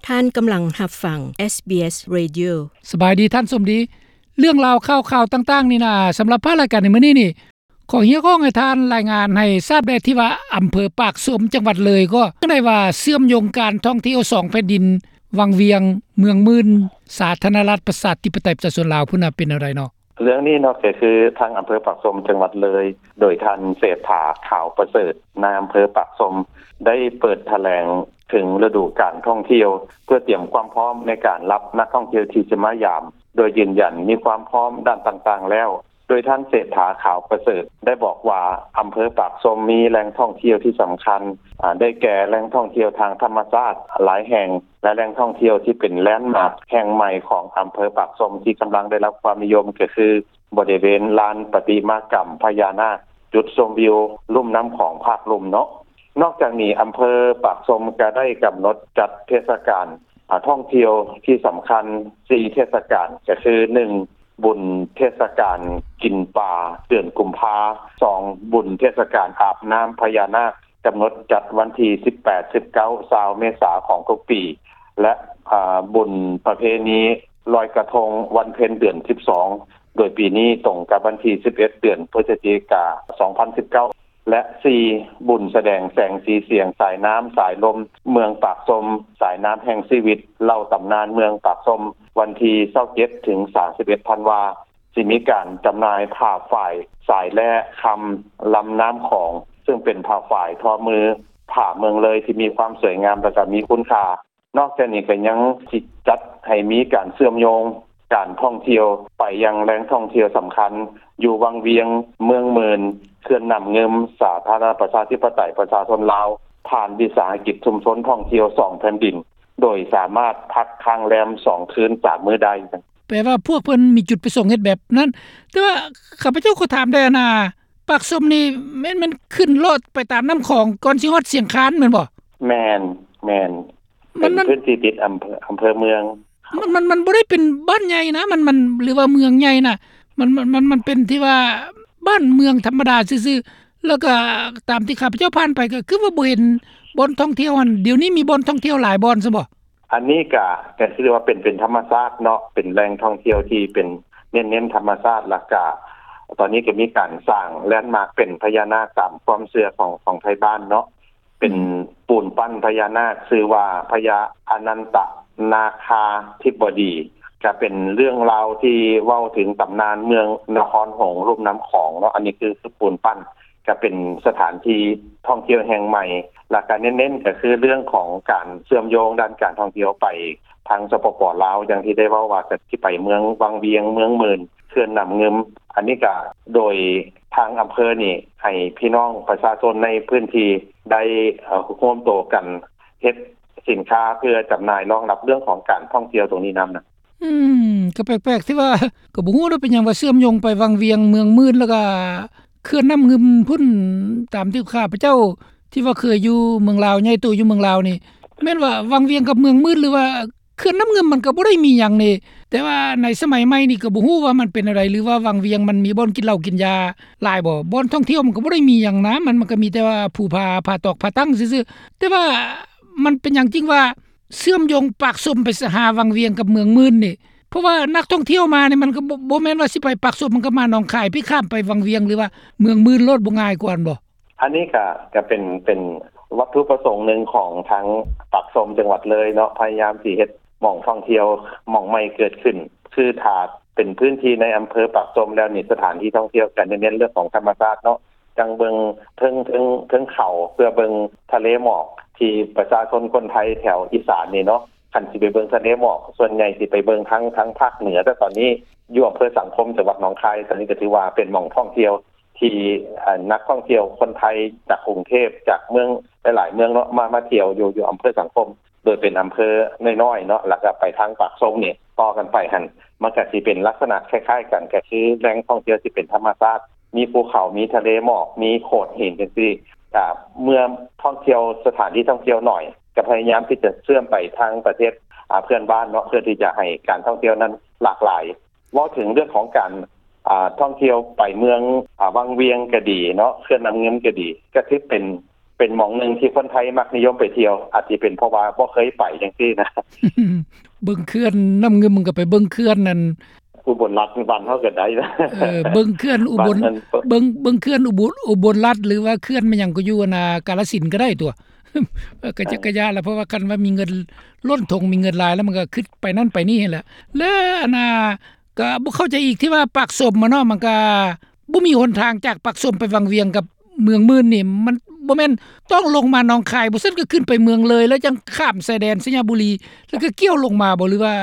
ທ່ານກຳລັງຮັບຟັງ ເອສບີເອສ Radio. ສະບາຍດີທ່ານສົມດີ. ເລື່ອງລາວຂ່າວໆຕ່າງໆນີ້ນະ ສຳລັບພາກລາຍການໃນມື້ນີ້ນີ້ ຂໍຮຽກຮ້ອງໃຫ້ທ່ານລາຍງານໃຫ້ຊາບແດ່ ທີ່ວ່າອຳເພີປາກຊົມ ຈັງຫວັດເລີຍ ກໍຈັ່ງໃດວ່າເຊື່ອມໂຍງການທ່ອງທ່ຽວສອງແຜ່ນດິນ ວັງວຽງ ເມືອງໝື່ນ ສາທາລະນະລັດ ປະຊາທິປະໄຕ ປະຊາຊົນລາວພຸ້ນນະ ເປັນແນວໃດເນາະ? ເລື່ອງນີ້ເນາະ ກໍຄືທາງອຳເພີປາກຊົມ ຈັງຫວັດເລີຍ ໂດຍທ່ານ ເສດຖາ ຂາວປະເສີດ ນາຍອຳເພີປາກຊົມ ໄດ້ເປີດຖະແຫຼງເຖິງລະດູການທ່ອງທ່ຽວ ເພື່ອຕຽມຄວາມພ້ອມໃນການຮັບນັກທ່ອງທ່ຽວທີ່ຈະມາຢາມ ໂດຍຢືນຢັນມີຄວາມພ້ອມດ້ານຕ່າງໆແລ້ວ. ໂດຍທ່ານ ເສດຖາ ຂາວປະເສີດ ໄດ້ບອກວ່າ ອຳເພີປາກຊົມມີແຫຼ່ງທ່ອງທ່ຽວທີ່ສຳຄັນ ອາ ໄດ້ແກ່ແຫຼ່ງທ່ອງທ່ຽວທາງທຳມະຊາດຫຼາຍແຫ່ງ ແລະ ແຫຼ່ງທ່ອງທ່ຽວທີ່ເປັນແລນມາກແຫ່ງໃໝ່ຂອງອຳເພີປາກຊົມ ທີ່ກຳລັງໄດ້ຮັບຄວາມນິຍົມ ກໍຄື ບໍລິເວນລານປະຕິມາກຳພະຍານາກ, ຈຸດຊົມວິວລຸ່ມນ້ຳຂອງພາກລຸ່ມເນາະ. ນອກຈາກນີ້ ອຳເພີປາກຊົມກໍໄດ້ກຳນົດຈັດເທດສະການ ອາ ທ່ອງທ່ຽວທີ່ສຳຄັນສີ່ເທດສະການ ກໍຄື ໜຶ່ງ ບຸນເທດສະການກິນປາເດືອນກຸມພາ, ສອງ ບຸນເທດສະການອາບນ້ຳພະຍານາກ ກຳນົດຈັດວັນທີສິບແປດ ສິບເກົ້າ ຊາວ ເມສາຂອງທຸກປີ ແລະ ອາ ບຸນປະເພນີລອຍກະທົງວັນເພັນເດືອນສິບສອງ ໂດຍປີນີ້ຕົງກັບວັນທີສິບເອັດ ເດືອນພຶສຈິກາ ສອງພັນສິບເກົ້າ ແລະ ສີ່ ບຸນສະແດງແສງສີສຽງສາຍນ້ຳສາຍລົມເມືອງປາກຊົມ ສາຍນ້ຳແຫ່ງຊີວິດ ເລົ່າຕຳນານເມືອງປາກຊົມ ວັນທີຊາວເຈັດ ເຖິງ ສາມສິບເອັດ ທັນວາ ຊິມີການຈຳໜ່າຍຜ້າຝ້າຍ ສາຍແລ່ຄຳ ລຳນ້ຳຂອງ ເຊິ່ງເປັນຜ້າຝ້າຍທໍມື ຜ້າເມືອງເລີຍທີ່ມີຄວາມສວຍງາມ ແລະ ກໍມີຄຸນຄ່າ. ນອກຈາກນີ້ກໍຍັງຊິຈັດໃຫ້ມີການເຊື່ອມໂຍງການທ່ອງທ່ຽວໄປຍັງແຫຼ່ງທ່ອງທ່ຽວສຳຄັນ ຢູ່ວັງວຽງ, ເມືອງໝື່ນ, ເຂື່ອນນ້ຳງື່ມ, ສາທາລະນະລັດປະຊາທິປະໄຕປະຊາຊົນລາວ ຜ່ານວິສາຫະກິດຊຸມຊົນທ່ອງທ່ຽວສອງແຜ່ນດິນ ໂດຍສາມາດພັກຄ້າງແຮມສອງຄືນສາມມື້ໄດ້. ແປວ່າພວກເພິ່ນມີຈຸດປະສົງເຮັດແບບນັ້ນ. ແຕ່ວ່າຂ້າພະເຈົ້າຂໍຖາມແດ່ນະ ປາກຊົມນີ້ແມ່ນ ແມ່ນຂຶ້ນລອດໄປຕາມນ້ຳຂອງກ່ອນຊິຮອດຊຽງຄານແມ່ນບໍ່? ແມ່ນ, ແມ່ນ. ມັນ ເປັນພື້ນທີ່ຕິດອຳເພີ ອຳເພີເມືອງ. ມັນ ມັນ ມັນບໍ່ໄດ້ເປັນບ້ານໃຫຍ່ນະ ມັນ ມັນ ຫຼືວ່າເມືອງໃຫຍ່ນະ ມັນ ມັນ ມັນ ມັນເປັນທີ່ວ່າບ້ານເມືອງທຳມະດາຊື່ໆ. ແລ້ວກໍຕາມທີ່ຂ້າພະເຈົ້າຜ່ານໄປ ກໍຄືວ່າບໍ່ເຫັນບ່ອນທ່ອງທ່ຽວຫັ້ນ. ດຽວນີ້ມີບ່ອນທ່ອງທ່ຽວຫຼາຍບ່ອນຊັ້ນບໍ່? ອັນນີ້ກະ ກະຖືວ່າເປັນ ເປັນທຳມະຊາດເນາະ ເປັນແຫຼ່ງທ່ອງທ່ຽວທີ່ເປັນເນັ້ນ ເນັ້ນທຳມະຊາດ. ແລ້ວກະຕອນນີ້ກໍມີການສ້າງແລນມາກເປັນພະຍານາກຕາມຄວາມເຊື່ອຂອງ ຂອງໄທບ້ານເນາະ ເປັນ ອືມ ປູນປັ້ນພະຍານາກ ຊື່ວ່າພະຍາອະນັນຕະນາຄາທິບໍດີ ກະເປັນເລື່ອງລາວທີ່ເວົ້າເຖິງຕຳນານເມືອງນະຄອນຫຼວງລຸ່ມນ້ຳຂອງເນາະ. ອັນນີ້ຄື ຄືປູນປັ້ນ ກະເປັນສະຖານທີ່ທ່ອງທ່ຽວແຫ່ງໃໝ່ ແລ້ວກະເນັ້ນໆ ກະຄືເລື່ອງຂອງການເຊື່ອມໂຍງດ້ານການທ່ອງທ່ຽວໄປທາງ ສປປ ລາວ ຢ່າງທີ່ໄດ້ເວົ້າວ່າ ກະຊິໄປເມືອງວັງວຽງ, ເມືອງໝື່ນ, ເຂື່ອນນ້ຳງື່ມ. ອັນນີ້ກະໂດຍທາງອຳເພີນີ້ ໃຫ້ພີ່ນ້ອງປະຊາຊົນໃນພື້ນທີ່ໄດ້ ເອີ ຮ່ວມໂຕກັນເຮັດສິນຄ້າເພື່ອຈຳໜ່າຍ ຮອງຮັບເລື່ອງຂອງການທ່ອງທ່ຽວຕົງນີ້ນຳນະ. ອືມ ກໍແປກໆ ທີ່ວ່າ ກໍບໍ່ຮູ້ເນາະ ເປັນຫຍັງວ່າເຊື່ອມໂຍງໄປວັງວຽງ, ເມືອງໝື່ນ ແລ້ວກໍເຂື່ອນນ້ຳງື່ມພຸ້ນ. ຕາມທີ່ຂ້າພະເຈົ້າທີ່ວ່າເຄີຍຢູ່ເມືອງລາວ ໃຫຍ່ໂຕຢູ່ເມືອງລາວນີ້ ແມ່ນວ່າວັງວຽງກັບເມືອງໝື່ນ ຫຼືວ່າເຂື່ອນນ້ຳງື່ມ ມັນກໍບໍ່ໄດ້ມີຫຍັງນີ້. ແຕ່ວ່າໃນສະໄໝໃໝ່ນີ້ກໍບໍ່ຮູ້ວ່າມັນເປັນແນວໃດ ຫຼືວ່າວັງວຽງມັນມີບ່ອນກິນເຫຼົ້າກິນຢາຫຼາຍບໍ່? ບ່ອນທ່ອງທ່ຽວມັນກໍບໍ່ໄດ້ມີຫຍັງນະ ມັນ ມັນກໍມີແຕ່ວ່າພູຜາ ຜາຕອກ ຜາຕັ້ງຊື່ໆ. ແຕ່ວ່າມັນເປັນຫຍັງຈຶ່ງວ່າ ເຊື່ອມໂຍງປາກຊົມໄປຫາວັງວຽງກັບເມືອງໝື່ນນີ້ ເພາະວ່ານັກທ່ອງທ່ຽວມານີ້ ມັນກໍບໍ່ ບໍ່ແມ່ນວ່າຊິໄປປາກຊົມ ມັນກໍມາໜອງຄາຍ ພີ້ຂ້າມໄປວັງວຽງ ຫຼືວ່າເມືອງໝື່ນໂລດ ບໍ່ງ່າຍກວ່າຫັ້ນບໍ່? ອັນນີ້ກະ ກະເປັນ ເປັນວັດຖຸປະສົງໜຶ່ງຂອງທາງປາກຊົມ ຈັງຫວັດເລີຍເນາະ ພະຍາຍາມຊິເຮັດໝ່ອງທ່ອງທ່ຽວໝ່ອງໃໝ່ເກີດຂຶ້ນ. ຄືຖ້າເປັນພື້ນທີ່ໃນອຳເພີປາກຊົມແລ້ວນີ້ ສະຖານທີ່ທ່ອງທ່ຽວກະເນັ້ນເລື່ອງຂອງທຳມະຊາດເນາະ ຈັ່ງເບິ່ງເທິງ ເທິງ ເທິງເຂົາ ເພື່ອເບິ່ງທະເລໝອກ ທີ່ປະຊາຊົນຄົນໄທແຖວອີສານນີ້ເນາະ ຄັນຊິໄປເບິ່ງທະເລໝອກ ສ່ວນໃຫຍ່ຊິໄປເບິ່ງທາງ ທາງພາກເໜືອ. ແຕ່ຕອນນີ້ຢູ່ອຳເພີສັງຄົມ ຈັງຫວັດໜອງຄາຍ ຕອນນີ້ກໍຖືວ່າເປັນໝ່ອງທ່ອງທ່ຽວທີ່ ເອີ ນັກທ່ອງທ່ຽວຄົນໄທຈາກກຸງເທບ ຈາກເມືອງຫຼາຍໆເມືອງເນາະ ມາ ມາທ່ຽວຢູ່ ຢູ່ອຳເພີສັງຄົມ ໂດຍເປັນອຳເພີນ້ອຍໆເນາະ ແລ້ວກໍໄປທາງປາກຊົມນີ້ ຕໍ່ກັນໄປຫັ້ນ ມັນກໍຊິເປັນລັກສະນະຄ້າຍໆກັນ ກໍຄືແຫຼ່ງທ່ອງທ່ຽວທີ່ເປັນທຳມະຊາດ ມີພູເຂົາ ມີທະເລໝອກ ມີໂຂດຫີນຈັ່ງຊີ້. ກະເມື່ອທ່ອງທ່ຽວ ສະຖານທີ່ທ່ອງທ່ຽວໜ້ອຍ ກະພະຍາຍາມທີ່ຈະເຊື່ອມໄປທາງປະເທດ ອາ ເພື່ອນບ້ານເນາະ ເພື່ອທີ່ຈະໃຫ້ການທ່ອງທ່ຽວນັ້ນຫຼາກຫຼາຍ. ເວົ້າເຖິງເລື່ອງຂອງການ ອາ ທ່ອງທ່ຽວໄປເມືອງ ອາ ວັງວຽງກໍດີເນາະ ເຂື່ອນນ້ຳງື່ມກໍດີ ກໍຖືເປັນ ເປັນໝ່ອງໜຶ່ງທີ່ຄົນໄທມັກນິຍົມໄປທ່ຽວ ອາດຊິເປັນເພາະວ່າບໍ່ເຄີຍໄປຈັ່ງຊີ້ນະ. ເບິ່ງເຂື່ອນນ້ຳງື່ມ ມັນກໍໄປເບິ່ງເຂື່ອນນັ້ນ ອຸບົນລັດບ້ານເຮົາກໍໄດ້ນະ. ເອີ ເບິ່ງເຂື່ອນອຸບົນ ບ້ານນັ້ນ ເບິ່ງ ເບິ່ງເຂື່ອນອຸບົນ ອຸບົນລັດ ຫຼືວ່າເຂື່ອນແມ່ນຫຍັງກໍຢູ່ອັນນ່າ ກາລະສິນກໍໄດ້ຕົວະ. ເອີ ກໍຈະ ເອີ ກະຍາລະ ເພາະວ່າຄັນວ່າມີເງິນລົ້ນຖົງ ມີເງິນຫຼາຍແລ້ວ ມັນກໍຄິດໄປນັ້ນໄປນີ້ຫັ້ນແຫຼະ. ແລະ ອັນນ່າ ກໍບໍ່ເຂົ້າໃຈອີກທີ່ວ່າປາກຊົມມາເນາະ ມັນກໍບໍ່ມີຫົນທາງຈາກປາກຊົມໄປວັງວຽງກັບເມືອງໝື່ນນີ້ ມັນບໍ່ແມ່ນຕ້ອງລົງມາໜອງຄາຍ ບໍ່ຊັ້ນກໍຂຶ້ນໄປເມືອງເລີຍ ແລ້ວຈັ່ງຂ້າມຊາຍແດນໄຊຍະບູລີ ແລ້ວກໍກ່ຽວລົງມາບໍ່ ຫຼືວ່າ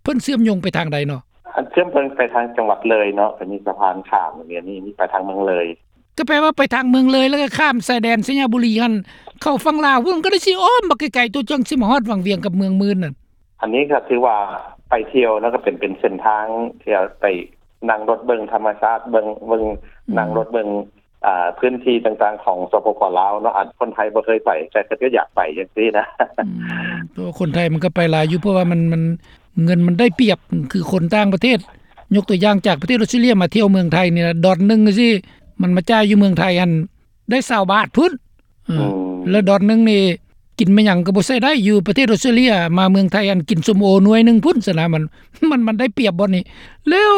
ເພິ່ນເຊື່ອມໂຍງໄປທາງໃດເນາະ? ອັນເຊື່ອມໂຍງໄປທາງຈັງຫວັດເລີຍເນາະ ກໍມີສະພານຂ້າມ ແບບນີ້ ມີໄປທາງເມືອງເລີຍ. ກໍແປວ່າໄປທາງເມືອງເລີຍ ແລ້ວກໍຂ້າມຊາຍແດນໄຊຍະບູລີຫັ້ນ ເຂົ້າຝັ່ງລາວພຸ້ນ ກໍໄດ້ຊິອ້ອມບັກໄກໆ ຕົວະ ຈັ່ງຊິມາຮອດວັງວຽງກັບເມືອງໝື່ນນັ້ນ. ອັນນີ້ກໍຖືວ່າໄປທ່ຽວ ແລ້ວກໍເປັນ ເປັນເສັ້ນທາງທີ່ໄປນັ່ງລົດເບິ່ງທຳມະຊາດ ເບິ່ງ ເບິ່ງ ອືມ ນັ່ງລົດເບິ່ງ ອ່າ ພື້ນທີ່ຕ່າງໆຂອງ ສປປ ລາວເນາະ ອັນຄົນໄທບໍ່ເຄີຍໄປ ແຕ່ເພິ່ນກໍຢາກໄປຈັ່ງຊີ້ນະ. ອືມ ເພາະວ່າຄົນໄທມັນກໍໄປຫຼາຍຢູ່ ເພາະວ່າມັນ ມັນ ເງິນມັນໄດ້ປຽບ ຄືຄົນຕ່າງປະເທດ ຍົກຕົວຢ່າງຈາກປະເທດອົດສະເຕຣເລຍມາທ່ຽວເມືອງໄທນີ້ລະ ດອນໜຶ່ງຈັ່ງຊີ້ ມັນມາຈ່າຍຢູ່ເມືອງໄທຫັ້ນ ໄດ້ຊາວບາດພຸ້ນ. ເອີ ອືມ ແລ້ວດອນໜຶ່ງນີ້ກິນແມ່ນຫຍັງກໍບໍ່ໃຊ້ໄດ້ ຢູ່ປະເທດອົດສະເຕຣເລຍ ມາເມືອງໄທອັນກິນສົ້ມໂອໜ່ວຍໜຶ່ງພຸ້ນຊັ້ນນະ ມັນ ມັນ ມັນໄດ້ປຽບບ່ອນນີ້. ແລ້ວ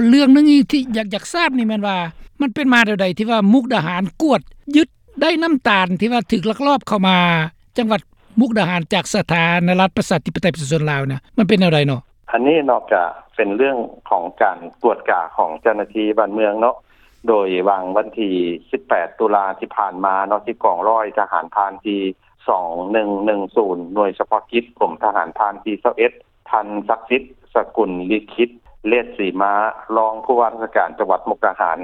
ເລື່ອງໜຶ່ງທີ່ຢາກ ຢາກຊາບນີ້ແມ່ນວ່າ ມັນເປັນມາແນວໃດທີ່ວ່າມຸກດາຫານກວດຍຶດໄດ້ນ້ຳຕານທີ່ວ່າຖືກລັກລອບເຂົ້າມາຈັງຫວັດມຸກດາຫານຈາກສາທາລະນະລັດປະຊາທິປະໄຕປະຊາຊົນລາວນະ ມັນເປັນແນວໃດເນາະ? ອັນນີ້ເນາະ ກະເປັນເລື່ອງຂອງການກວດກາຂອງເຈົ້າໜ້າທີ່ບ້ານເມືອງເນາະ ໂດຍຫວ່າງວັນທີສິບແປດຕຸລາທີ່ຜ່ານມາເນາະ ທີ່ກອງຮ້ອຍທະຫານພານທີສອງໜຶ່ງໜຶ່ງສູນ ໜ່ວຍສະເພາະກິດ ກົມທະຫານພານທີຊາວເອັດ ທ່ານ ສັກສິດ ສະກຸນລິຂິດ ເລດສີມາ ຮອງຜູ້ວ່າລາຊະການຈັງຫວັດມຸກດາຫານ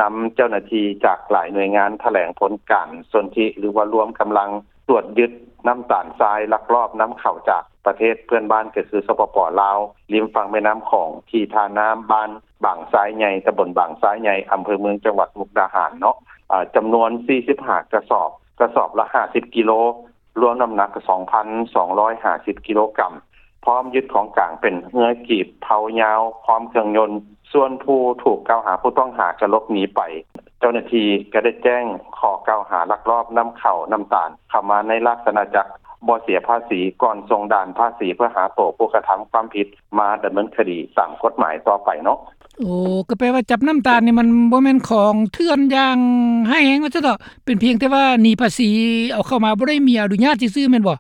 ນຳເຈົ້າໜ້າທີ່ຈາກຫຼາຍໜ່ວຍງານຖະແຫຼງຜົນການສົນທິ ຫຼືວ່າລວມກຳລັງ ກວດຍຶດນ້ຳຕານຊາຍລັກລອບນຳເຂົ້າຈາກປະເທດເພື່ອນບ້ານ ກໍຄື ສປປ ລາວ ລິມຝັ່ງແມ່ນ້ຳຂອງ ທີ່ທ່ານ້ຳ ບ້ານບາງຊາຍໃຫຍ່ ຕຳບົນບາງຊາຍໃຫຍ່ ອຳເພີເມືອງ ຈັງຫວັດມຸກດາຫານເນາະ ອາ ຈຳນວນສີ່ສິບຫ້າກະສອບ ກະສອບລະຫ້າສິບກິໂລ ລວມນ້ຳໜັກສອງພັນສອງຮ້ອຍຫ້າສິບກິໂລກຣາມ ພ້ອມຍຶດຂອງກາງເປັນເຮືອກີບເພົາຍາວ ພ້ອມເຄື່ອງຍົນ. ສ່ວນຜູ້ຖືກກ່າວຫາ ຜູ້ຕ້ອງຫາກໍຫຼົບໜີໄປ. ເຈົ້າໜ້າທີ່ກໍໄດ້ແຈ້ງຂໍ້ກ່າວຫາລັກລອບນຳເຂົ້ານ້ຳຕານເຂົ້າມາໃນລາຊະອານາຈັກ ບໍ່ເສຍພາສີ ກ່ອນສົ່ງດ່ານພາສີເພື່ອຫາໂຕຜູ້ກະທຳຄວາມຜິດມາດຳເນີນຄະດີຕາມກົດໝາຍຕໍ່ໄປເນາະ. ໂອ້ ກໍແປວ່າຈັບນ້ຳຕານນີ້ມັນບໍ່ແມ່ນຂອງເຖື່ອນຢ່າງຮ້າຍແຮງວ່າຊັ້ນເຖາະ ເປັນພຽງແຕ່ວ່າໜີພາສີເອົາເຂົ້າມາ ບໍ່ໄດ້ມີອະນຸຍາດຊື່ໆ ແມ່ນບໍ່?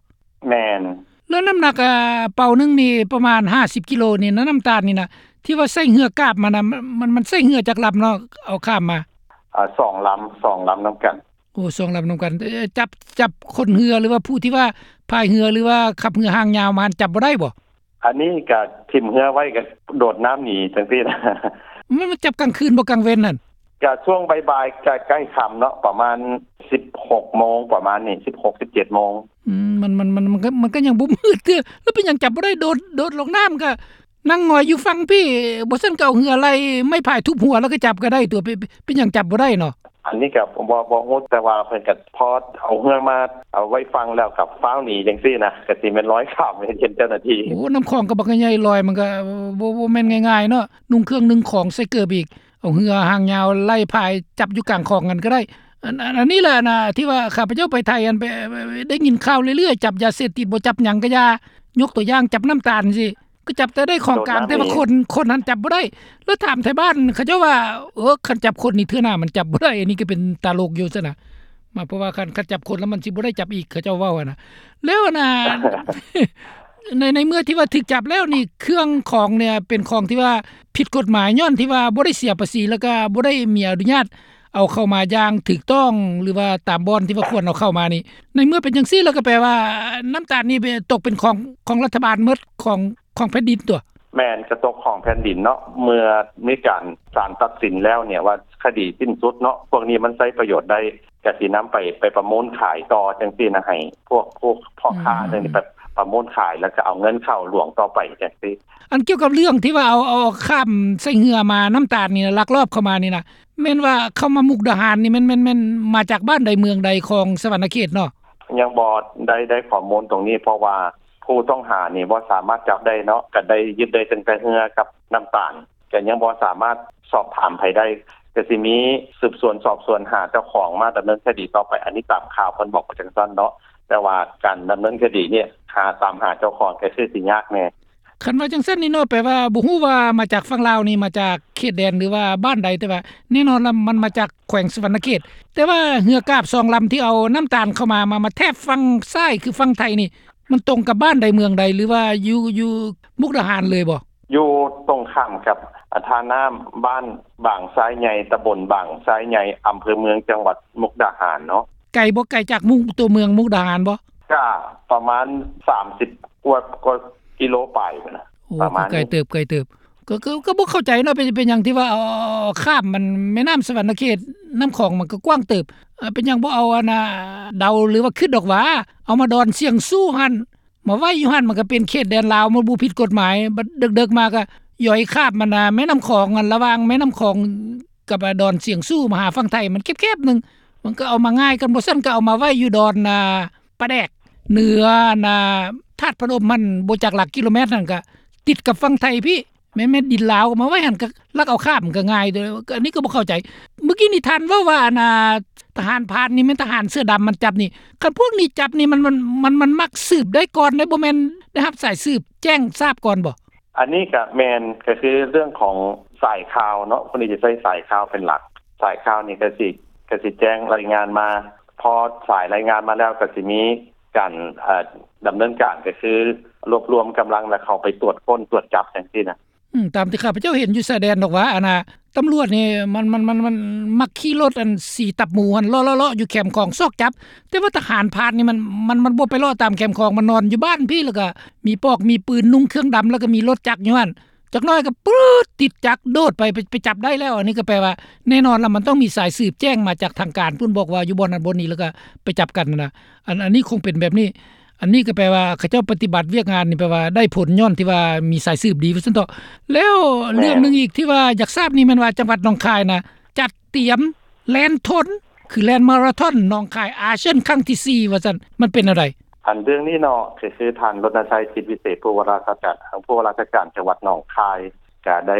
ແມ່ນ. ແລ້ວນ້ຳໜັກ ອາ ເປົາໜຶ່ງນີ້ປະມານຫ້າສິບກິໂລນີ້ນະ ນ້ຳຕານນີ້ນະ ທີ່ວ່າໃຊ້ເຮືອກາບມານະ ມັນ ມັນໃຊ້ເຮືອຈັກລຳເນາະ ເອົາຂ້າມມາ? ອາ ສອງລຳ ສອງລຳນຳກັນ. ໂອ້ ສອງລຳນຳກັນ. ເອີ ຈັບ ຈັບຄົນເຮືອ ຫຼືວ່າຜູ້ທີ່ວ່າພາຍເຮືອ ຫຼືວ່າຂັບເຮືອຫາງຍາວມາ ຈັບບໍ່ໄດ້ບໍ່? ອັນນີ້ກະຖິ້ມເຮືອໄວ້ ກະໂດດນ້ຳໜີຈັ່ງຊີ້ນະ. ມັນ ມັນຈັບກາງຄືນບໍ່ ກາງເວັນຫັ້ນ? ກະຊ່ວງບ່າຍໆ ກະໃກ້ຄ່ຳເນາະ ປະມານສິບຫົກໂມງ ປະມານນີ້ ສິບຫົກ ສິບເຈັດໂມງ. ອືມ ມັນ ມັນ ມັນ ມັນກໍ ມັນກໍຍັງບໍ່ມືດເທື່ອ ແລ້ວເປັນຫຍັງຈັບບໍ່ໄດ້? ໂດດ ໂດດລົງນ້ຳ ກະນັ່ງຫງອຍຢູ່ຝັ່ງພີ້ ບໍ່ຊັ້ນກໍເອົາເຮືອໄລ່ໄມ້ພາຍທຸບຫົວ ແລ້ວກໍຈັບກໍໄດ້ຕົວະ ເປັນ ເປັນຫຍັງຈັບບໍ່ໄດ້ເນາະ? ອັນນີ້ກໍບໍ່ ບໍ່ຮູ້ ແຕ່ວ່າເພິ່ນກໍພໍເອົາເຮືອມາ ເອົາໄວ້ຝັ່ງແລ້ວກໍຟ້າວໜີຈັ່ງຊີ້ນະ ກໍຊິແມ່ນລອຍຂ້າມ ເຫັນເຈົ້າໜ້າທີ່. ໂອ້ ນ້ຳຂອງກໍບັກໃຫຍ່ ລອຍມັນກໍບໍ່ ບໍ່ແມ່ນງ່າຍໆເນາະ ນຸ່ງເຄື່ອງໜຶ່ງຂອງໃສ່ເກີບອີກ ເອົາເຮືອຫາງຍາວໄລ່ພາຍຈັບຢູ່ກາງຂອງຫັ້ນກໍໄດ້. ອັນ ອັນ ອັນນີ້ແຫຼະນະ ທີ່ວ່າຂ້າພະເຈົ້າໄປໄທ ອັນ ໄປ ໄປ ໄດ້ຍິນຂ່າວເລື້ອຍໆ ຈັບຢາເສບຕິດບໍ່ ຈັບຫຍັງກໍຢ່າ ຍົກຕົວຢ່າງຈັບນ້ຳຕານຊີ້ ກໍຈັບແຕ່ໄດ້ຂອງກາງ ແຕ່ວ່າຄົນ ຄົນຫັ້ນຈັບບໍ່ໄດ້. ແລ້ວຖາມໄທບ້ານເຂົາເຈົ້າວ່າ ເອີ ຄັນຈັບຄົນນີ້ເທື່ອໜ້າມັນຈັບບໍ່ໄດ້ ອັນນີ້ກໍເປັນຕະຫຼົກຢູ່ຊັ້ນນະ ມາ ເພາະວ່າຄັນ ຄັນຈັບຄົນແລ້ວມັນຊິບໍ່ໄດ້ຈັບອີກ ເຂົາເຈົ້າເວົ້າຫັ້ນນະ. ແລ້ວອັນນ່າ ໃນ ໃນເມື່ອທີ່ວ່າຖືກຈັບແລ້ວນີ້ ເຄື່ອງຂອງເນ່ຍເປັນຂອງທີ່ວ່າຜິດກົດໝາຍ ຍ້ອນທີ່ວ່າບໍ່ໄດ້ເສຍພາສີ ແລ້ວກໍບໍ່ໄດ້ມີອະນຸຍາດ ເອົາເຂົ້າມາຢ່າງຖືກຕ້ອງ ຫຼືວ່າຕາມບ່ອນທີ່ວ່າຄວນເອົາເຂົ້າມານີ້ ໃນເມື່ອເປັນຈັ່ງຊີ້ແລ້ວ ກໍແປວ່ານ້ຳຕານນີ້ຕົກເປັນຂອງ ຂອງລັດຖະບານໝົດ ຂອງ ຂອງແຜ່ນດິນຕົວະ? ແມ່ນ ກະຕົກຂອງແຜ່ນດິນເນາະ ເມື່ອມີການ ສານຕັດສິນແລ້ວເນ່ຍວ່າຄະດີສິ້ນສຸດເນາະ ພວກນີ້ມັນໃຊ້ປະໂຫຍດໄດ້ ກະຊິນຳໄປ ໄປປະມູນຂາຍຕໍ່ຈັ່ງຊີ້ນະ ໃຫ້ພວກ ພວກພໍ່ຄ້າ ອືມ ຈັ່ງນີ້ ໄປປະມູນຂາຍ ແລ້ວກະເອົາເງິນເຂົ້າຫຼວງຕໍ່ໄປຈັ່ງຊີ້. ອັນກ່ຽວກັບເລື່ອງທີ່ວ່າເອົາ ເອົາ ເອົາຂ້າມໃສ່ເຮືອມາ ນ້ຳຕານນີ້ນະ ລັກລອບເຂົ້າມານີ້ນະ ແມ່ນວ່າເຂົ້າມາມຸກດາຫານນີ້ ແມ່ນ ແມ່ນ ແມ່ນມາຈາກບ້ານໃດເມືອງໃດຂອງສະຫວັນນະເຂດເນາະ? ຍັງບໍ່ໄດ້ ໄດ້ຂໍ້ມູນຕົງນີ້ ເພາະວ່າຜູ້ຕ້ອງຫານີ້ບໍ່ສາມາດຈັບໄດ້ເນາະ ກະໄດ້ຍຶດໄດ້ຕັ້ງແຕ່ເຮືອກັບນ້ຳຕານ ກະຍັງບໍ່ສາມາດສອບຖາມໃຜໄດ້ ກໍຊິມີສືບສວນສອບສວນຫາເຈົ້າຂອງມາດຳເນີນຄະດີຕໍ່ໄປ. ອັນນີ້ຕາມຂ່າວເພິ່ນບອກມາຈັ່ງຊັ້ນເນາະ, ແຕ່ວ່າການດຳເນີນຄະດີນີ້ຫາ ຕາມຫາເຈົ້າຂອງກໍຄືຊິຍາກແດ່. ຄັນວ່າຈັ່ງຊັ້ນນີ້ເນາະ ແປວ່າບໍ່ຮູ້ວ່າມາຈາກຝັ່ງລາວນີ້ ມາຈາກເຂດແດນ ຫຼືວ່າບ້ານໃດ, ແຕ່ວ່າແນ່ນອນລະມັນມາຈາກແຂວງສະຫວັນນະເຂດ. ແຕ່ວ່າເຮືອກາບສອງລຳທີ່ເອົານ້ຳຕານເຂົ້າມາ ມາ ມາແທບຝັ່ງຊ້າຍ ຄືຝັ່ງໄທນີ້ ມັນຕົງກັບບ້ານໃດເມືອງໃດ ຫຼືວ່າຢູ່ ຢູ່ມຸກດາຫານເລີຍບໍ່? ຢູ່ຕົງຂ້າມກັບ ອາ ທ່ານ້ຳ ບ້ານບາງຊາຍໃຫຍ່ ຕຳບົນບາງຊາຍໃຫຍ່ ອຳເພີເມືອງ ຈັງຫວັດມຸກດາຫານເນາະ. ໄກບໍ່? ໄກຈາກມຸກ ຕົວເມືອງມຸກດາຫານບໍ່? ກະປະມານສາມສິບກວ່າ ກວ່າກິໂລປາຍພຸ້ນນະ. ໂອ້ ປະມານນີ້ ກໍໄກເຕີບ ໄກເຕີບ. ກໍ ກໍ ກໍບໍ່ເຂົ້າໃຈເນາະ ເປັນ ເປັນຫຍັງທີ່ວ່າເອົາ ເອົາ ເອົາຂ້າມມັນ ແມ່ນ້ຳສະຫວັນນະເຂດ ນ້ຳຂອງມັນກໍກວ້າງເຕີບ ເປັນຫຍັງບໍ່ເອົາ ອັນນ່າ ເດົາ ຫຼືວ່າຄິດດອກຫວາ ເອົາມາດອນຊຽງຊູ່ຫັ້ນ ມາໄວ້ຢູ່ຫັ້ນ ມັນກໍເປັນເຂດແດນລາວ ມັນບໍ່ຜິດກົດໝາຍ. ບັດເດິກໆມາກໍຢອຍຂ້າມ ອັນນ່າ ແມ່ນ້ຳຂອງ ອັນລະຫວ່າງແມ່ນ້ຳຂອງກັບ ອາ ດອນຊຽງຊູ່ ມາຫາຝັ່ງໄທ ມັນແຄບໆໜຶ່ງ ມັນກໍເອົາມາງ່າຍ ຄັນບໍ່ຊັ້ນກໍເອົາມາໄວ້ຢູ່ດອນ ອາ ປາແດກ ເໜືອ ອັນນ່າ ທາດພະນົມຫັ້ນ ບໍ່ຈັກຫຼັກກິໂລແມັດຫັ້ນ ກໍຕິດກັບຝັ່ງໄທພີ້ ແມ່ນ ແມ່ນດິນລາວ ເອົາມາໄວ້ຫັ້ນ ກໍລັກເອົາຂ້າມກໍງ່າຍເດີ. ອັນນີ້ກໍບໍ່ເຂົ້າໃຈ. ມື້ກີ້ນີ້ທ່ານເວົ້າວ່າ ອັນນ່າ ທະຫານພານນີ້ແມ່ນທະຫານເສືອດຳມັນຈັບນີ້ ຄັນພວກນີ້ຈັບນີ້ ມັນ ມັນ ມັນ ມັນມັກສືບໄດ້ກ່ອນເດ້ ບໍ່ແມ່ນໄດ້ຮັບສາຍສືບແຈ້ງຊາບກ່ອນບໍ່? ອັນນີ້ກະແມ່ນ ກະຄືເລື່ອງຂອງສາຍຂ່າວເນາະ ພວກນີ້ຈະໃຊ້ສາຍຂ່າວເປັນຫຼັກ. ສາຍຂ່າວນີ້ກະຊິ ກະຊິແຈ້ງລາຍງານມາ ພໍສາຍລາຍງານມາແລ້ວ ກະຊິມີການ ເອີ ດຳເນີນການ ກະຄືລວບລວມກຳລັງ ແລ້ວເຂົ້າໄປກວດຄົ້ນກວດຈັບຈັ່ງຊີ້ນະ. ອືມ ຕາມທີ່ຂ້າພະເຈົ້າເຫັນຢູ່ຊາຍແດນດອກຫວາ ອັນນ່າ ຕຳຫຼວດນີ້ມັນ ມັນ ມັນ ມັນມັກຂີ່ລົດ ອັນ ສີຕັບໝູຫັ້ນ ເລາະໆໆຢູ່ແຄມຂອງຊອກຈັບ ແຕ່ວ່າທະຫານພານນີ້ມັນ ມັນ ມັນບໍ່ໄປເລາະຕາມແຄມຂອງ ມັນນອນຢູ່ບ້ານພີ້ ແລ້ວກໍມີປອກມີປືນ ນຸ່ງເຄື່ອງດຳ ແລ້ວກໍມີລົດຈັກຢູ່ຫັ້ນ ຈັກໜ້ອຍກໍປຶດ ຕິດຈັກໂດດໄປ ໄປ ໄປຈັບໄດ້ແລ້ວ. ອັນນີ້ກໍແປວ່າແນ່ນອນລະ ມັນຕ້ອງມີສາຍສືບແຈ້ງມາຈາກທາງການພຸ້ນ ບອກວ່າຢູ່ບ່ອນນັ້ນບ່ອນນີ້ ແລ້ວກໍໄປຈັບກັນຫັ້ນນະ. ອັນ ອັນນີ້ຄົງເປັນແບບນີ້. ອັນນີ້ກໍແປວ່າເຂົາເຈົ້າປະຕິບັດວຽກງານນີ້ ແປວ່າໄດ້ຜົນຍ້ອນທີ່ວ່າມີສາຍສືບດີວ່າຊັ້ນເຖາະ. ແລ້ວເລື່ອງໜຶ່ງອີກທີ່ວ່າຢາກຊາບນີ້ແມ່ນວ່າ ຈັງຫວັດໜອງຄາຍນະ ຈັດຕຽມແລ່ນທົນ ຄືແລ່ນມາລາທອນໜອງຄາຍອາຊຽນຄັ້ງທີສີ່ ວ່າຊັ້ນ ມັນເປັນແນວໃດ? ອັນເລື່ອງນີ້ເນາະ ກໍຄືທ່ານ ລົນນະໄຊ ຈິດວິເສດ ຜູ້ວ່າລາຊະການ ຜູ້ວ່າລາຊະການຈັງຫວັດໜອງຄາຍ ກະໄດ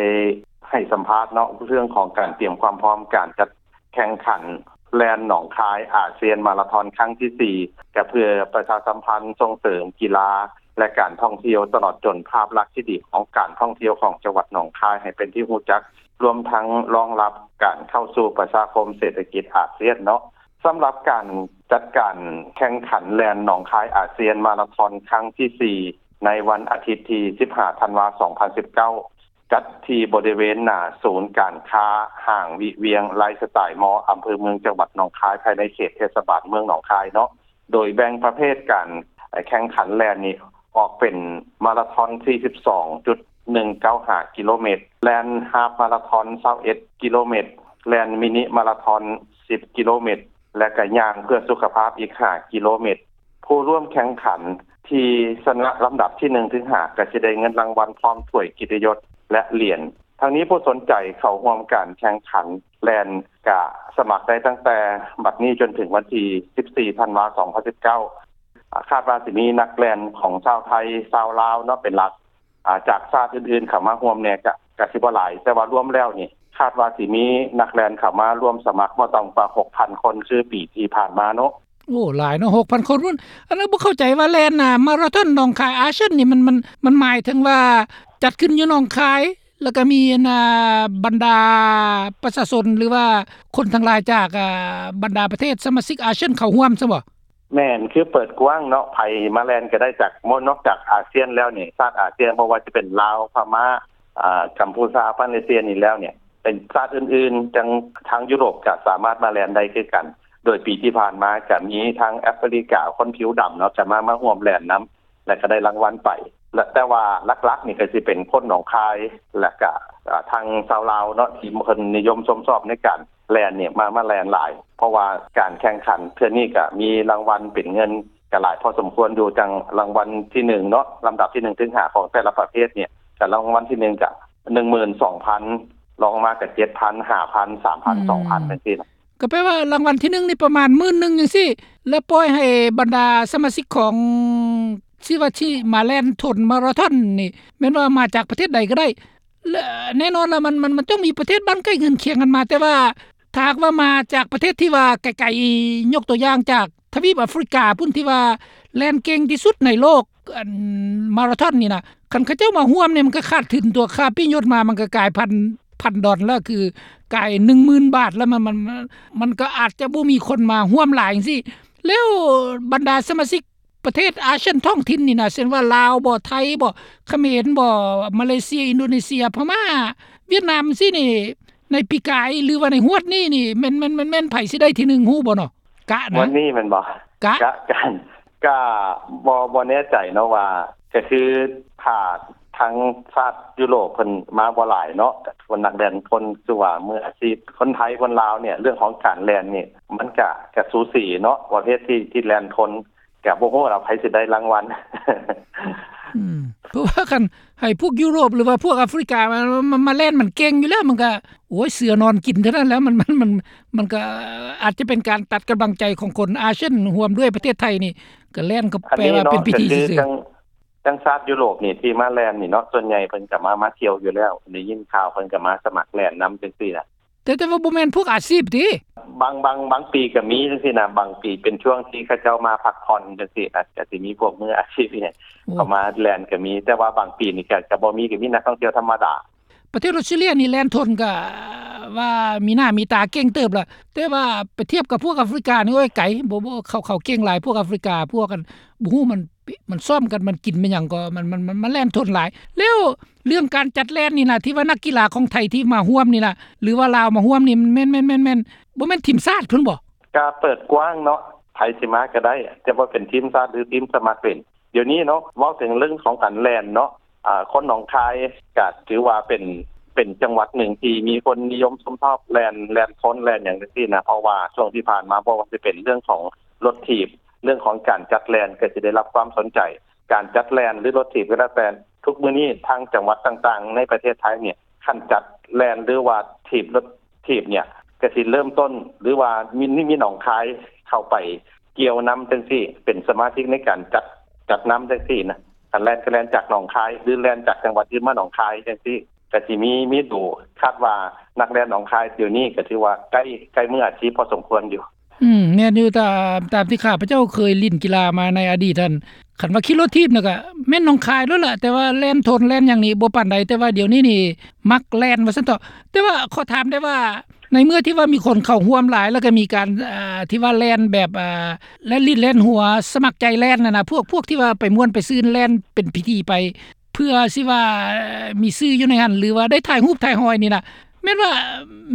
້ໃຫ້ສຳພາດເນາະ ເລື່ອງຂອງການຕຽມຄວາມພ້ອມການຈັດ ແຂ່ງຂັນແລ່ນໜອງຄາຍອາຊຽນມາລາທອນຄັ້ງທີສີ່ ກະເພື່ອປະຊາສຳພັນສົ່ງເສີມກິລາ ແລະ ການທ່ອງທ່ຽວ ຕະຫຼອດຈົນພາບລັກທີ່ດີຂອງການທ່ອງທ່ຽວຂອງຈັງຫວັດໜອງຄາຍໃຫ້ເປັນທີ່ຮູ້ຈັກ, ລວມທັງລອງຮັບການເຂົ້າສູ່ປະຊາຄົມເສດຖະກິດອາຊຽນເນາະ. ສຳລັບການຈັດການແຂ່ງຂັນແລ່ນໜອງຄາຍອາຊຽນມາລາທອນຄັ້ງທີສີ່ ໃນວັນອາທິດທີສິບຫ້າ ທັນວາ ສອງພັນສິບເກົ້າ ຈັດທີ່ບໍລິເວນໜ້າສູນການຄ້າຫ້າງວິວຽງໄລຟ໌ສະໄຕລ໌ມໍ ອຳເພີເມືອງ ຈັງຫວັດໜອງຄາຍ ພາຍໃນເຂດເທດສະບານເມືອງໜອງຄາຍເນາະ. ໂດຍແບ່ງປະເພດການແຂ່ງຂັນແລ່ນນີ້ອອກເປັນມາລາທອນ ສີ່ສິບສອງຈຸດໜຶ່ງເກົ້າຫ້າ ກິໂລແມັດ, ແລ່ນຮາບມາລາທອນ ຊາວເອັດ ກິໂລແມັດ, ແລ່ນມິນິມາລາທອນ ສິບ ກິໂລແມັດ ແລະ ກະຍ່າງເພື່ອສຸຂະພາບອີກ ຫ້າ ກິໂລແມັດ. ຜູ້ຮ່ວມແຂ່ງຂັນທີ່ຊະນະລຳດັບທີໜຶ່ງເຖິງຫ້າ ກໍຈະໄດ້ເງິນລາງວັນພ້ອມຖ້ວຍກຽດຕິຍົດ ແລະ ຫຼຽນ. ທັງນີ້ຜູ້ສົນໃຈເຂົ້າຮ່ວມການແຂ່ງຂັນແລ່ນກະສະໝັກໄດ້ຕັ້ງແຕ່ບັດນີ້ຈົນເຖິງວັນທີສິບສີ່ ທັນວາ ສອງພັນສິບເກົ້າ. ຄາດວ່າຊິມີນັກແລ່ນຂອງຊາວໄທ, ຊາວລາວເນາະ ເປັນຫຼັກ. ອາ ຈາກຊາດອື່ນໆເຂົ້າມາຮ່ວມແດ່ກະ ກະຊິບໍ່ຫຼາຍ, ແຕ່ວ່າລວມແລ້ວນີ້ ຄາດວ່າຊິມີນັກແລ່ນເຂົ້າມາຮ່ວມສະໝັກບໍ່ຕ່ຳກວ່າຫົກພັນຄົນ ຄືປີທີ່ຜ່ານມາເນາະ. ໂອ້ ຫຼາຍເນາະ ຫົກພັນຄົນພຸ້ນ. ອັນນັ້ນບໍ່ເຂົ້າໃຈວ່າແລ່ນ ອາ ມາລາທອນໜອງຄາຍອາຊຽນນີ້ ມັນ ມັນ ມັນໝາຍເຖິງວ່າຈັດຂຶ້ນຢູ່ໜອງຄາຍ ແລ້ວກໍມີ ອັນ ອາ ບັນດາປະຊາຊົນ ຫຼືວ່າຄົນທັງຫຼາຍຈາກ ອາ ບັນດາປະເທດສະມາຊິກອາຊຽນເຂົ້າຮ່ວມຊະບໍ? ແມ່ນ ຄືເປີດກວ້າງເນາະ ໃຜມາແລ່ນກໍໄດ້ ຈາກ ນອກຈາກອາຊຽນແລ້ວນີ້ ຊາດອາຊຽນ ບໍ່ວ່າຈະເປັນລາວ ພະມ້າ ອາ ກຳພູຊາ ມາເລເຊຍນີ້ແລ້ວນີ້ ເປັນຊາດອື່ນໆ ທາງ ທາງຢູໂຣບກໍສາມາດມາແລ່ນໄດ້ຄືກັນ. ໂດຍປີທີ່ຜ່ານມາກໍມີທາງແອຟຣິກາ ຄົນຜິວດຳເນາະ ກໍມາ ມາຮ່ວມແລ່ນນຳ ແລ້ວກໍໄດ້ລາງວັນໄປ ແລະ ແຕ່ວ່າຫຼັກໆນີ້ກໍຊິເປັນຄົນໜອງຄາຍ ແລ້ວກໍ ອາ ທາງຊາວລາວເນາະ ທີ່ເພິ່ນນິຍົມຊົມຊອບໃນການ ແລ່ນນີ້ມາ ມາແລ່ນຫຼາຍ ເພາະວ່າການແຂ່ງຂັນເທື່ອນີ້ກະມີລາງວັນເປັນເງິນກະຫຼາຍພໍສົມຄວນຢູ່ ຈັ່ງລາງວັນທີໜຶ່ງເນາະ ລຳດັບທີໜຶ່ງເຖິງຫ້າຂອງແຕ່ລະປະເພດນີ້ ກະລາງວັນທີໜຶ່ງກະໜຶ່ງໝື່ນສອງພັນ ລອງມາກະເຈັດພັນ ຫ້າພັນ ສາມພັນ ສອງພັນ ຈັ່ງຊີ້ນະ. ກໍແປວ່າລາງວັນທີໜຶ່ງນີ້ປະມານໝື່ນໜຶ່ງຈັ່ງຊີ້ ແລ້ວປ່ອຍໃຫ້ບັນດາສະມາຊິກຂອງ ທີ່ວ່າທີ່ມາແລ່ນທົນມາລາທອນນີ້ ແມ່ນວ່າມາຈາກປະເທດໃດກໍໄດ້ ແລະ ແນ່ນອນລະ ມັນ ມັນ ມັນຕ້ອງມີປະເທດບ້ານໃກ້ເຮືອນຄຽງກັນມາ ແຕ່ວ່າຖ້າຫາກວ່າມາຈາກປະເທດທີ່ວ່າໄກໆ ຍົກຕົວຢ່າງຈາກທະວີບອາຟຣິກາພຸ້ນ ທີ່ວ່າແລ່ນເກັ່ງທີ່ສຸດໃນໂລກ ອັນມາຣາທອນນີ້ນະ ຄັນເຂົາເຈົ້າມາຮ່ວມນີ້ ມັນກໍຂາດທຶນຕົວະ ຄ່າປີ້ຍົດມາ ມັນກໍກາຍພັນ ພັນດອນແລ້ວ ຄືກາຍໜຶ່ງໝື່ນບາດແລ້ວ ມັນ ມັນ ມັນກໍອາດຈະບໍ່ມີຄົນມາຮ່ວມຫຼາຍຈັ່ງຊີ້. ແລ້ວບັນດາສະມາຊິກ ປະເທດອາຊຽນທ້ອງຖິ່ນນີ້ນະ ເຊັ່ນວ່າລາວບໍ ໄທບໍ ຂະເໝນບໍ ມາເລເຊຍ ອິນໂດເນເຊຍ ພະມ້າ ຫວຽດນາມຊີ້ນີ້ ໃນປີກາຍ ຫຼືວ່າໃນຮວດນີ້ນີ້ ແມ່ນ ແມ່ນ ແມ່ນ ແມ່ນໃຜຊິໄດ້ທີໜຶ່ງ ຮູ້ບໍ່ເນາະ? ກະນະ ງວດນີ້ແມ່ນບໍ່? ກະ ກະ ກະ ກະບໍ່ ບໍ່ແນ່ໃຈເນາະວ່າ ກະຄືຖ້າທາງຊາດຢູໂຣບເພິ່ນມາບໍ່ຫຼາຍເນາະ ຄົນນັກແລ່ນຄົນ ຄືວ່າມືອາຊີບ ຄົນໄທຄົນລາວນີ້ ເລື່ອງຂອງການແລ່ນນີ້ ມັນກະ ກະສູສີເນາະ ປະເພດທີ່ ທີ່ແລ່ນທົນ ກະບໍ່ຮູ້ລະ ໃຜຊິໄດ້ລາງວັນ. ອືມ ເພາະວ່າຄັນໃຫ້ພວກຢູໂຣບ ຫຼືວ່າພວກອາຟຣິກາມາ ມາ ມາແລ່ນ ມັນເກັ່ງຢູ່ແລ້ວ ມັນກະ ໂອ້ຍ ເສືອນອນກິນເທົ່ານັ້ນແຫຼະ ມັນ ມັນ ມັນ ມັນກະອາດຈະເປັນການຕັດກຳລັງໃຈຂອງຄົນອາຊຽນ ຮ່ວມດ້ວຍປະເທດໄທນີ້ ກະແລ່ນກໍແປວ່າເປັນພິທີຊື່ໆ. ຈັ່ງຊາດຢູໂຣບນີ້ທີ່ມາແລ່ນນີ້ເນາະ ສ່ວນໃຫຍ່ເພິ່ນກະມາ ມາທ່ຽວຢູ່ແລ້ວ ໄດ້ຍິນຂ່າວເພິ່ນກະມາສະໝັກແລ່ນນຳຈັ່ງຊີ້ນະ. ແຕ່ ແຕ່ວ່າບໍ່ແມ່ນພວກອາຊີບຕິ? ບາງ ບາງ ບາງປີກະມີຈັ່ງຊີ້ນະ ບາງປີເປັນຊ່ວງທີ່ເຂົາເຈົ້າມາພັກຜ່ອນຈັ່ງຊີ້ນະ ກະຊິມີພວກມືອາຊີບ ເຂົ້າມາແລ່ນກະມີ ແຕ່ວ່າບາງປີນີ້ກະ ກະບໍ່ມີ ກະມີນັກທ່ອງທ່ຽວທຳມະດາ. ປະເທດອອສເຕຣເລັຽນີ້ແລ່ນທົນກະວ່າມີໜ້າມີຕາເກັ່ງເຕີບລະ ແຕ່ວ່າໄປທຽບກັບພວກອາຟຣິການີ້ ໂອ້ຍ ໄກ ບໍ່ ບໍ່ ເຂົາ ເຂົາເກັ່ງຫຼາຍ ພວກອາຟຣິກາ ພວກ ອັນ ບໍ່ຮູ້ມັນ ມັນຊ້ອມກັນ ມັນກິນແມ່ນຫຍັງກໍ ມັນ ມັນ ມັນ ມັນແລ່ນທົນຫຼາຍ. ແລ້ວເລື່ອງການຈັດແລ່ນນີ້ນະ ທີ່ວ່ານັກກິລາຂອງໄທທີ່ມາຮ່ວມນີ້ນະ ຫຼືວ່າລາວມາຮ່ວມນີ້ ມັນແມ່ນ ແມ່ນ ແມ່ນ ແມ່ນ ບໍ່ແມ່ນທີມຊາດພຸ້ນບໍ? ກະເປີດກວ້າງເນາະ ໃຜຊິມາກະໄດ້ ຈະວ່າເປັນທີມຊາດ ຫຼື ທີມສະໝັກເປັນ. ດຽວນີ້ເນາະ ເວົ້າເຖິງເລື່ອງຂອງການແລ່ນເນາະ ອາ ຄົນໜອງຄາຍກະຖືວ່າເປັນ ເປັນຈັງຫວັດໜຶ່ງທີ່ມີຄົນນິຍົມຊົມຊອບແລ່ນ ແລ່ນຄົນແລ່ນຫຍັງຈັ່ງຊີ້ນະ ເພາະວ່າຊ່ວງທີ່ຜ່ານມາ ບໍ່ວ່າຈະເປັນເລື່ອງຂອງລົດຖີບ ເລື່ອງຂອງການຈັດແລ່ນກະຊິໄດ້ຮັບຄວາມສົນໃຈ ການຈັດແລ່ນ ຫຼື ລົດຖີບກໍແລ້ວແຕ່ ທຸກມື້ນີ້ທາງຈັງຫວັດຕ່າງໆໃນປະເທດໄທນີ້ ຄັນຈັດແລ່ນ ຫຼືວ່າຖີບລົດຖີບນີ້ ກະຊິເລີ່ມຕົ້ນ ຫຼືວ່າມີ ມີໜອງຄາຍເຂົ້າໄປກ່ຽວນຳຈັ່ງຊີ້ ເປັນສະມາຊິກໃນການຈັດ ຈັດນຳຈັ່ງຊີ້ນະ. ຄັນແລ່ນກະແລ່ນຈາກໜອງຄາຍ ຫຼື ແລ່ນຈາກຈັງຫວັດອື່ນມາໜອງຄາຍຈັ່ງຊີ້ ກະຊິມີ ມີດູ. ຄາດວ່ານັກແລ່ນໜອງຄາຍດຽວນີ້ກະຖືວ່າໃກ້ ໃກ້ມືອາຊີບພໍສົມຄວນຢູ່. ອືມ ແມ່ນຢູ່ ຕາມ ຕາມທີ່ຂ້າພະເຈົ້າເຄີຍຫຼິ້ນກິລາມາໃນອະດີດຫັ້ນ ຄັນວ່າຂີ່ລົດຖີບນະກະແມ່ນໜອງຄາຍໂລດລະ ແຕ່ວ່າແລ່ນທົນແລ່ນຫຍັງນີ້ບໍ່ປານໃດ ແຕ່ວ່າດຽວນີ້ນີ້ມັກແລ່ນວ່າຊັ້ນເຖາະ. ແຕ່ວ່າຂໍຖາມໄດ້ວ່າ ໃນເມື່ອທີ່ວ່າມີຄົນເຂົ້າຮ່ວມຫຼາຍ ແລ້ວກະມີການ ອ່າ ທີ່ວ່າແລ່ນແບບ ອ່າ ແລ່ນຫຼິ້ນແລ່ນຫົວ ສະໝັກໃຈແລ່ນຫັ້ນນະ ພວກ ພວກທີ່ວ່າໄປມ່ວນໄປຊື່ນ ແລ່ນເປັນພິທີໄປ ເພື່ອຊິວ່າມີຊື່ຢູ່ໃນຫັ້ນ ຫຼືວ່າໄດ້ຖ່າຍຮູບຖ່າຍຮອຍນີ້ນະ ແມ່ນວ່າ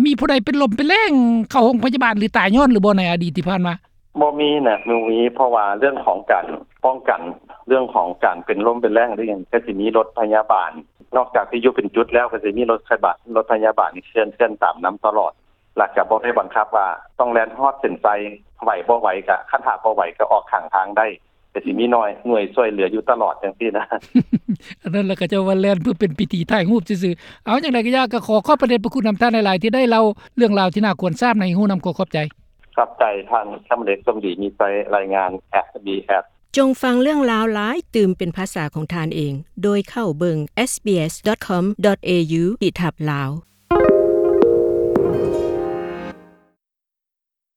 ມີຜູ້ໃດເປັນລົມເປັນແລ້ງ ເຂົ້າໂຮງພະຍາບານ ຫຼື ຕາຍຍ້ອນຫຼືບໍ່ ໃນອະດີດທີ່ຜ່ານມາ? ບໍ່ມີນະ ບໍ່ມີ ເພາະວ່າເລື່ອງຂອງການປ້ອງກັນ ເລື່ອງຂອງການເປັນລົມເປັນແລ້ງ ຫຼືຫຍັງ ກະຊິມີລົດພະຍາບານ ນອກຈາກທີ່ຢູ່ເປັນຈຸດແລ້ວ ກະຊິມີລົດພະຍາບານ ລົດພະຍາບານເຄື່ອນ ເຄື່ອນຕາມນຳຕະຫຼອດ ແລ້ວກະບໍ່ໄດ້ບັງຄັບວ່າຕ້ອງແລ່ນຮອດເສັ້ນໄຊ ໄຫວບໍ່ໄຫວກະ ຄັນຖ້າບໍ່ໄຫວກະອອກຂ້າງທາງໄດ້ ກະຊິມີໜ່ວຍ ໜ່ວຍຊ່ວຍເຫຼືອຢູ່ຕະຫຼອດຈັ່ງຊີ້ນະ. ອັນນັ້ນລະ ເຂົາເຈົ້າວ່າແລ່ນເພື່ອເປັນພິທີຖ່າຍຮູບຊື່ໆ. ເອົາ ຈັ່ງໃດກະຢ່າ ກະຂໍຂອບພະເດດພະຄຸນນຳທ່ານຫຼາຍໆ ທີ່ໄດ້ເລົ່າເລື່ອງລາວທີ່ໜ້າຄວນຊາບໃຫ້ຮູ້ນຳ. ຂໍຂອບໃຈ. ຂອບໃຈທ່ານ ຄຳເດດ ສົມດີມີໄຊ ລາຍງານ ເອສບີເອສ. ຈົ່ງຟັງເລື່ອງລາວຫຼາຍຕື່ມເປັນພາສາຂອງທ່ານເອງ ໂດຍເຂົ້າເບິ່ງ ເອສບີເອສດອດຄອມດອດເອຢູ ຂີດທັບ ລາວ.